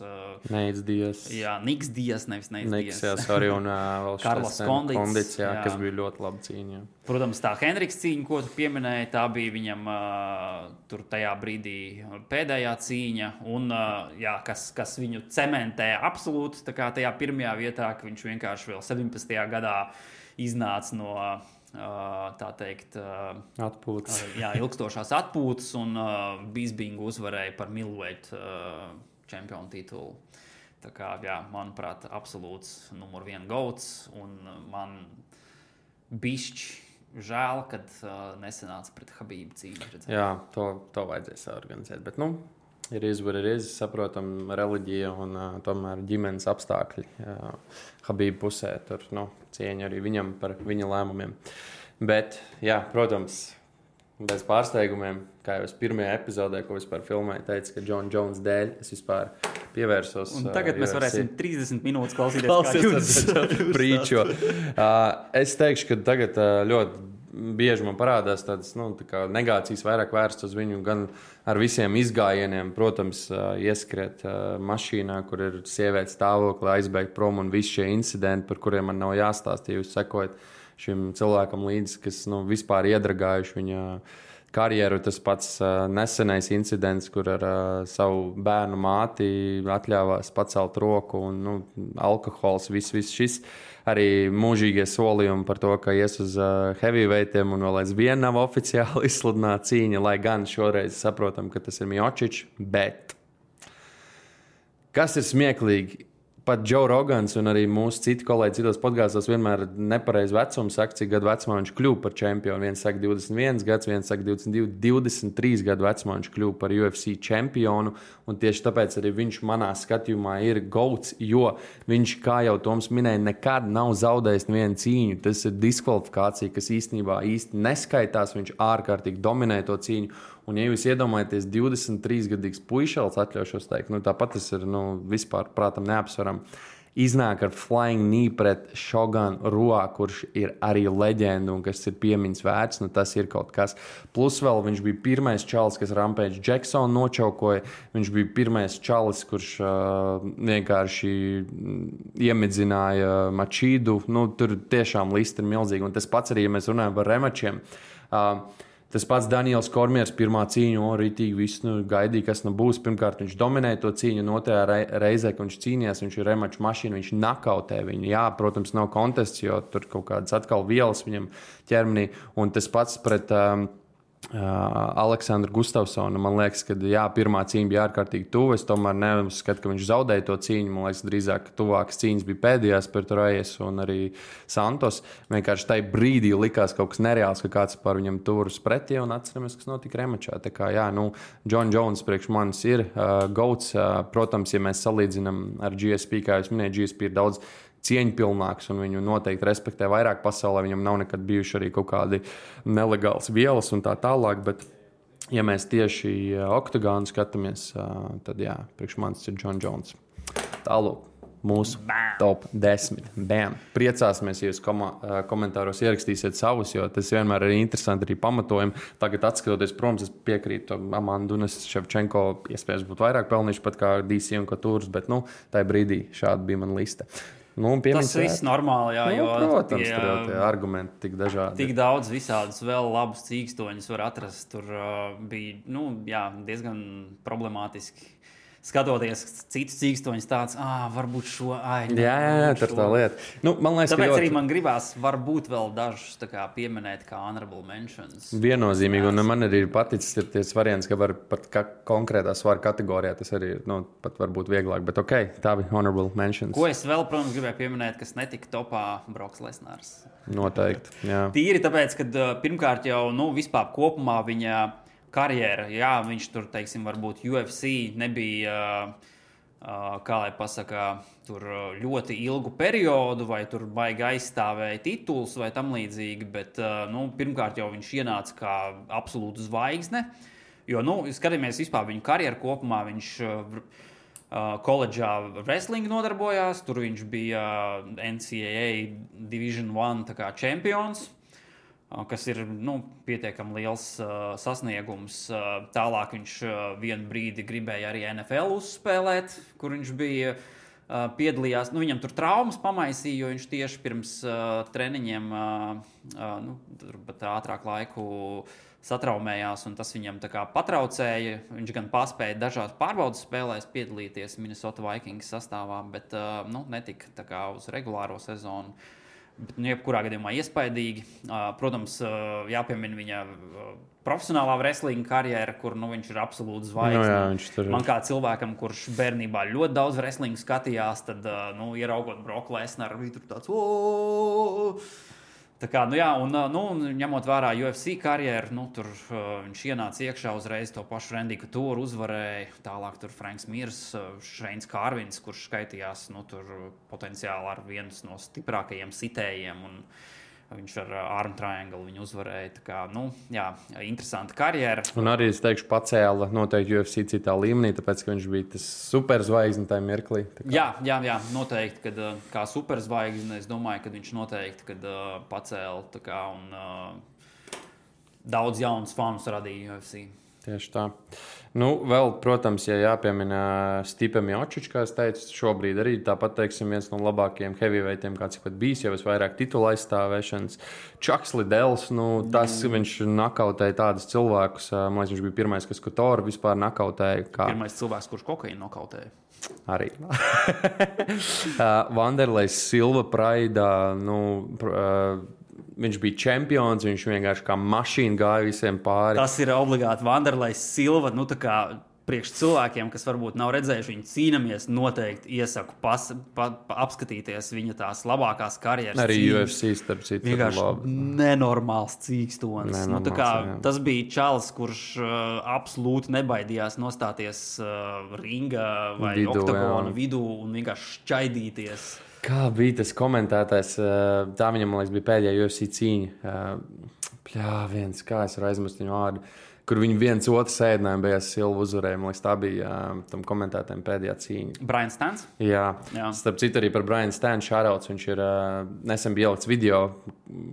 Neids Dias. Jā, Niks Dias, nevis Neids Dias. Jā, sorry, un vēl Carlos Kondits, jā, kas bija ļoti laba cīņa. Jā. Protams, tā Henriks cīņa, ko tu pieminēji, tā bija viņam tur tajā brīdī pēdējā cīņa, un jā, kas viņu cementē absolūti, tā kā tajā pirmajā vietā, ka viņš vienkārši vēl 17. gadā iznāca no tā teikt, atpūtas. Jā, ilgstošās atpūtas, un Bispingu uzvarēja par middleweight čempionu titulu. Tā kā, jā, manuprāt, absolūts numur 1 gauts, un man bišķi žēl, kad nesanāca pret Habību cīņu. Jā, to vajadzēja saorganizēt, bet, ir izvarējies, saprotam, reliģija un tomēr ģimenes apstākļi. Habība pusē tur cieņa arī viņam par viņa lēmumiem. Bet, jā, protams, bez pārsteigumiem, kā jau es pirmajā epizodē, ko vispār filmēju, teicu, ka John Jones dēļ es vispār pievērsos. Un tagad mēs varēsim 30 minūtes klausīties prīčo. Es teikšu, ka tagad ļoti bieži man parādās tādas tā negācijas vairāk vērsts uz viņu, gan ar visiem izgājieniem, protams, ieskriet mašīnā, kur ir sievietes stāvokli, aizbēgt prom un visi šie incidenti, par kuriem man nav jāstāst, ja jūs sekojat šim cilvēkam līdzi, kas vispār iedragājuši viņa karjeru. Tas pats nesenais incidents, kur ar savu bērnu māti atļāvās pacelt roku un alkohols, viss šis. Arī mūžīgie solījumi par to, ka ies uz heavyweightiem un vēl aizvien nav oficiāli izsludināta cīņa, lai gan šoreiz saprotam, ka tas ir Miocic, bet kas ir smieklīgi? Pat Joe Rogans un arī mūsu citi kolēģi citos podkāstos vienmēr nepareizi vecumu saka, cik gadu vecumā viņš kļuva par čempionu. Viens saka 21 gads, viens saka 22, 23 gadu vecumā viņš kļuva par UFC čempionu. Un tieši tāpēc arī viņš manā skatījumā ir gauts, jo viņš, kā jau Toms minēja, nekad nav zaudējis nevienu cīņu. Tas ir diskvalifikācija, kas īstenībā īsti neskaitās. Viņš ārkārtīgi dominē to cīņu. Un, ja jūs iedomājaties 23-gadīgs puišals, atļaušos teikt, tāpat tas ir vispār prātam neapsveram, iznāk ar flying knee pret Šoganu Ruā, kurš ir arī leģenda un kas ir piemiņas vērts, tas ir kaut kas. Plus vēl viņš bija pirmais čalis, kas Rampage Jacksonu nočaukoja, viņš bija pirmais čalis, kurš vienkārši iemidzināja Mačīdu, tur tiešām lista ir milzīga. Un tas pats arī, ja mēs runājam par remačiem, tas pats Daniels Kormiers pirmā cīņa, rītīgi viss gaidīja, kas būs. Pirmkārt, viņš dominēja to cīņu, un otrajā reizē, kad viņš cīnījās, viņš ir remaču mašīna, viņš nakautē viņu. Jā, protams, nav kontests, jo tur kaut kādas atkal vielas viņam ķermenī. Un tas pats pret Aleksandru Gustavsonu. Man liekas, ka jā, pirmā cīņa bija ārkārtīgi tuva. Es tomēr neuzskatu, ka viņš zaudēja to cīņu. Man liekas, drīzāk tuvākas cīņas bija pēdējās pret Rajes un arī Santos. Vienkārši tajā brīdī likās kaut kas nereāls, ka kāds par viņam turas pretī, un atceramies, kas notika remačā. Tā kā jā, John Jones priekš manis ir gauts. Protams, ja mēs salīdzinām ar GSP, kā jūs minējāt, GSP ir daudz cieņpilnāks, un viņu noteikti respektē vairāk pasaulē. Viņam nav nekad bijuši arī kaut kādi nelegāls vielas un tā tālāk, bet ja mēs tieši oktagonu skatāmies, tad jā, priekš manis ir John Jones. Tālūk, mūsu top 10. Bam! Priecāsimies, ja jūs komentāros ierakstīsiet savus, jo tas vienmēr ir interesanti arī pamatojumi. Tagad atskatoties, protams, es piekrītu Amandu un Ševčenko, iespējams būtu vairāk pelnījuši pat kā DC un Katūras, bet tajā brīdī šāda bija mana lista. Tas viss normāli, jā, jo protams, tur jau tie argumenti tik dažādi. Tik daudz visādus vēl labus cīkstoņus var atrast. Tur bija diezgan problemātiski. Skatoties citus cīkstoņus, tāds, varbūt šo Jā, tur tā lieta. Man liekas, tāpēc arī man gribās varbūt vēl dažus pieminēt kā honorable mentions. Viennozīmīgi, un man arī ir paticis ties variants, ka var pat konkrētā svara kategorijā tas arī pat varbūt vieglāk, bet tā bija honorable mentions. Ko es vēl, protams, gribēju pieminēt, kas netika topā Broks Lesnars. Noteikti, jā. Tīri tāpēc, ka pirmkārt jau, vispār kopumā viņa karjera, jā, viņš tur, teiksim, varbūt UFC nebija, kā lai pasaka, tur ļoti ilgu periodu, vai tur baigi aizstāvēja tituls vai tam līdzīgi, bet, pirmkārt jau viņš ienāca kā absolūta zvaigzne, jo, skatāmies vispār viņu karjeru kopumā, viņš koledžā wrestling nodarbojās, tur viņš bija NCAA Division I čempions. kas ir pietiekami liels sasniegums. Tālāk viņš vienu brīdi gribēja arī NFL uzspēlēt, kur viņš bija piedalījās. Viņam tur traumas pamaisīja, jo viņš tieši pirms treniņiem ātrāk laiku satraumējās, un tas viņam tā kā patraucēja. Viņš gan paspēja dažās pārbaudas spēlēs piedalīties Minnesota Vikings sastāvā, bet netika tā kā uz regulāro sezonu. Bet, jebkurā gadījumā iespaidīgi. Protams, jāpiemina viņa profesionālā wrestlinga karjera, kur viņš ir absolūts zvaigzne. Man kā cilvēkam, kurš bērnībā ļoti daudz wrestlinga skatījās, tad ieraugot Brock Lesnaru, bija tur tāds tā kā, un ņemot vērā UFC karjeru, tur viņš ienāca iekšā uzreiz to pašu Randy Couture uzvarēja, tālāk tur Franks Mirs, Šeins Kārvins, kurš skaitījās tur potenciāli ar viens no stiprākajiem sitējiem, un viņš ar arm triangle viņu uzvarēja. Tā kā, interesanta karjera. Un arī, es teikšu, pacēla noteikti UFC citā līmenī, tāpēc, ka viņš bija tas superzvaigzne tajā mirklī. Jā, noteikti, kad kā superzvaigzne, es domāju, ka viņš noteikti pacēla tā kā, un daudz jaunus fanus radīja UFC. Tieši tā. Vēl, protams, ja jāpiemina Stipe Miocic, kā es teicu, šobrīd arī tāpat, teiksim, viens no labākajiem heavyweightiem, kāds ir pat bijis, jau vairāk titula aizstāvēšanas. Chucks Liddells, tas viņš nakautēja tādus cilvēkus, man liekas, viņš bija pirmais, kas Couture vispār nakautēja. Pirmais cilvēks, kurš kokaīnu nokautēja. Arī. Vanderlejs Silva Praidā, viņš bija čempions, viņš vienkārši kā mašīna gāja visiem pāri. Tas ir obligāti Vanderlejs Silva. Tā kā priekš cilvēkiem, kas varbūt nav redzējuši viņu cīnamies, noteikti iesaku apskatīties viņa tās labākās karjeras. Arī UFC, starp citu. Vienkārši nenormāls cīkstonis. Tas bija čalis, kurš absolūti nebaidījās nostāties ringa vai oktagona vidū un vienkārši šķaidīties. Kā bija tas komentētājs? Tā viņam, man liekas, bija pēdējā UFC cīņa. Kā es varu aizmirst viņu vārdu, kur viņi viens otru sēdinājumu beigās Silva uzvarēja. Man liekas, tā bija tam komentētājiem pēdējā cīņa. Brian Stans? Jā. Starp citu arī par Brian Stanu shoutouts. Viņš ir nesen bija ielikts video,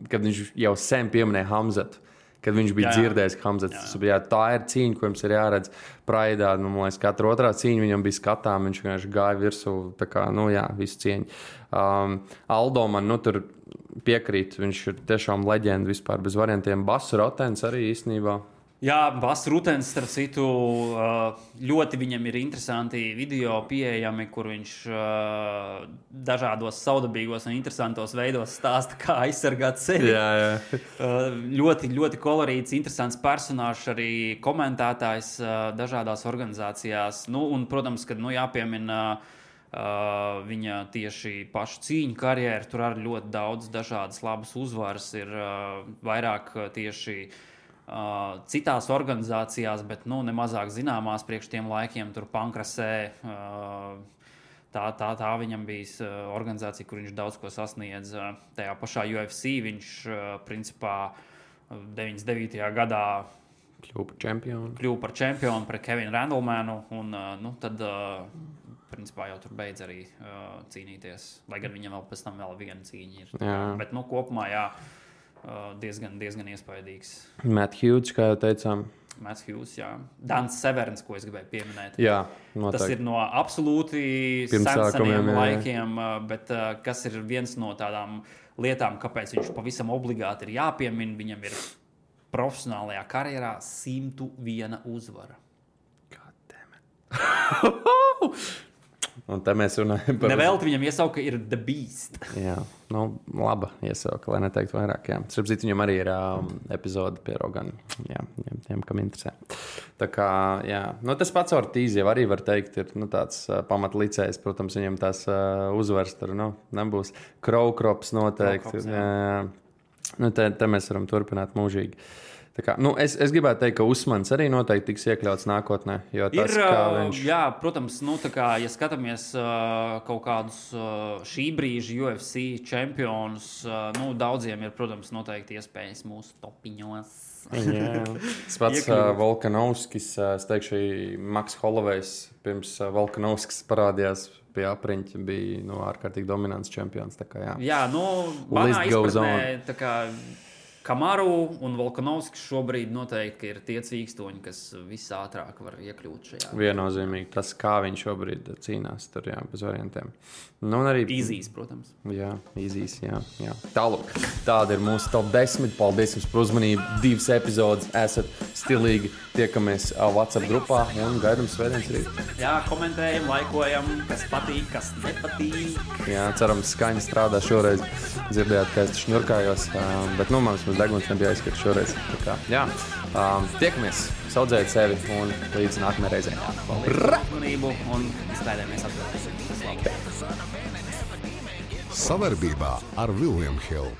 kad viņš jau sen pieminēja Hamzatu. Kad viņš bija dzirdējis, ka Hamzats tā ir cīņa, ko jums ir jāredz Praidā. Man liekas, katra otrā cīņa viņam bija skatām, viņš vienkārši gāja virsū, tā kā, visu cieņu. Aldo man, tur piekrīt, viņš ir tiešām leģenda vispār bez variantiem. Bass Rotens arī īstenībā. Jā, Bass Rutens, starp citu, ļoti viņam ir interesanti video pieejami, kur viņš dažādos saudabīgos un interesantos veidos stāsta, kā aizsargāt sevi. Ļoti, ļoti kolorīts, interesants personāžs, arī komentētājs dažādās organizācijās. Un, protams, kad jāpiemina viņa tieši pašu cīņu karjeru, tur arī ļoti daudz dažādas labas uzvaras ir vairāk tieši citās organizācijās, bet nemazāk zināmās priekš tiem laikiem, tur Pankrasē. Tā viņam bija organizācija, kur viņš daudz ko sasniedz. Tajā pašā UFC viņš principā 99. gadā kļuva par čempionu pret Kevinu Randlemanu, un tad principā jau tur beidz arī cīnīties, lai gan viņam vēl pēc tam vēl viena cīņa ir. Bet kopumā diezgan iespaidīgs. Matt Hughes, kā jau teicām. Matt Hughes, jā. Dans Severns, ko es gribēju pieminēt. Jā, noteikti. Tas ir no absolūti seniem laikiem, bet kas ir viens no tādām lietām, kāpēc viņš pavisam obligāti ir jāpiemina, viņam ir profesionālajā karjerā 101 uzvara. God damn it. Un te mēs runājam par... Nevelti viņam iesauka ir The Beast. Jā, laba iesauka, lai neteiktu vairāk. Starp citu, viņam arī ir epizode pie Rogana. Jā, tiem, kam interesē. Tā kā, tas pats Ortiz jau arī var teikt, ir tāds pamatlicējs. Protams, viņam tās uzvaras tur nebūs. Krowkrops noteikti. Te mēs varam turpināt mūžīgi. Kā, es gribētu teikt, ka Usmans arī noteikti tiks iekļauts nākotnē. Tas, viņš... Jā, protams, ja skatāmies kaut kādus šī brīža UFC čempionus, daudziem ir, protams, noteikti iespējas mūsu topiņos. Tas pats Volkanovskis, es teikšu, Maks Hollowejs pirms Volkanovskis parādījās pie apriņķa, bija ārkārtīgi dominants čempions. Tā kā, manā izpratnē, tā kā Kamaru un Volkanovskis šobrīd noteikti ir tie cīkstoņi, kas visātrāk var iekļūt šajā. Viennozīmīgi tas, kā viņš šobrīd cīnās, tur jā, bez variantiem. Nu, un arī Īzīs, protams. Jā, īzīs, jā. Tālāk, tāda ir mūsu top 10. Paldies jums par uzmanību. 2 epizodes esat stilīgi. Tiekamies WhatsApp grupā un gaidām svētdienas rīt. Jā, komentējam, laikojam, kas patīk, kas nepatīk. Jā, cerams, skaņa strādā šoreiz. Dzirdējāt, ka es šņurkājos, bet nu, mums deguns nebija aizskats šoreiz. Tā kā, jā, tiekamies, saudzējiet sevi un līdz nākamajai reizei. Paldies uzmanību un izklaidējamies atpakaļ. Savarbībā ar William Hill.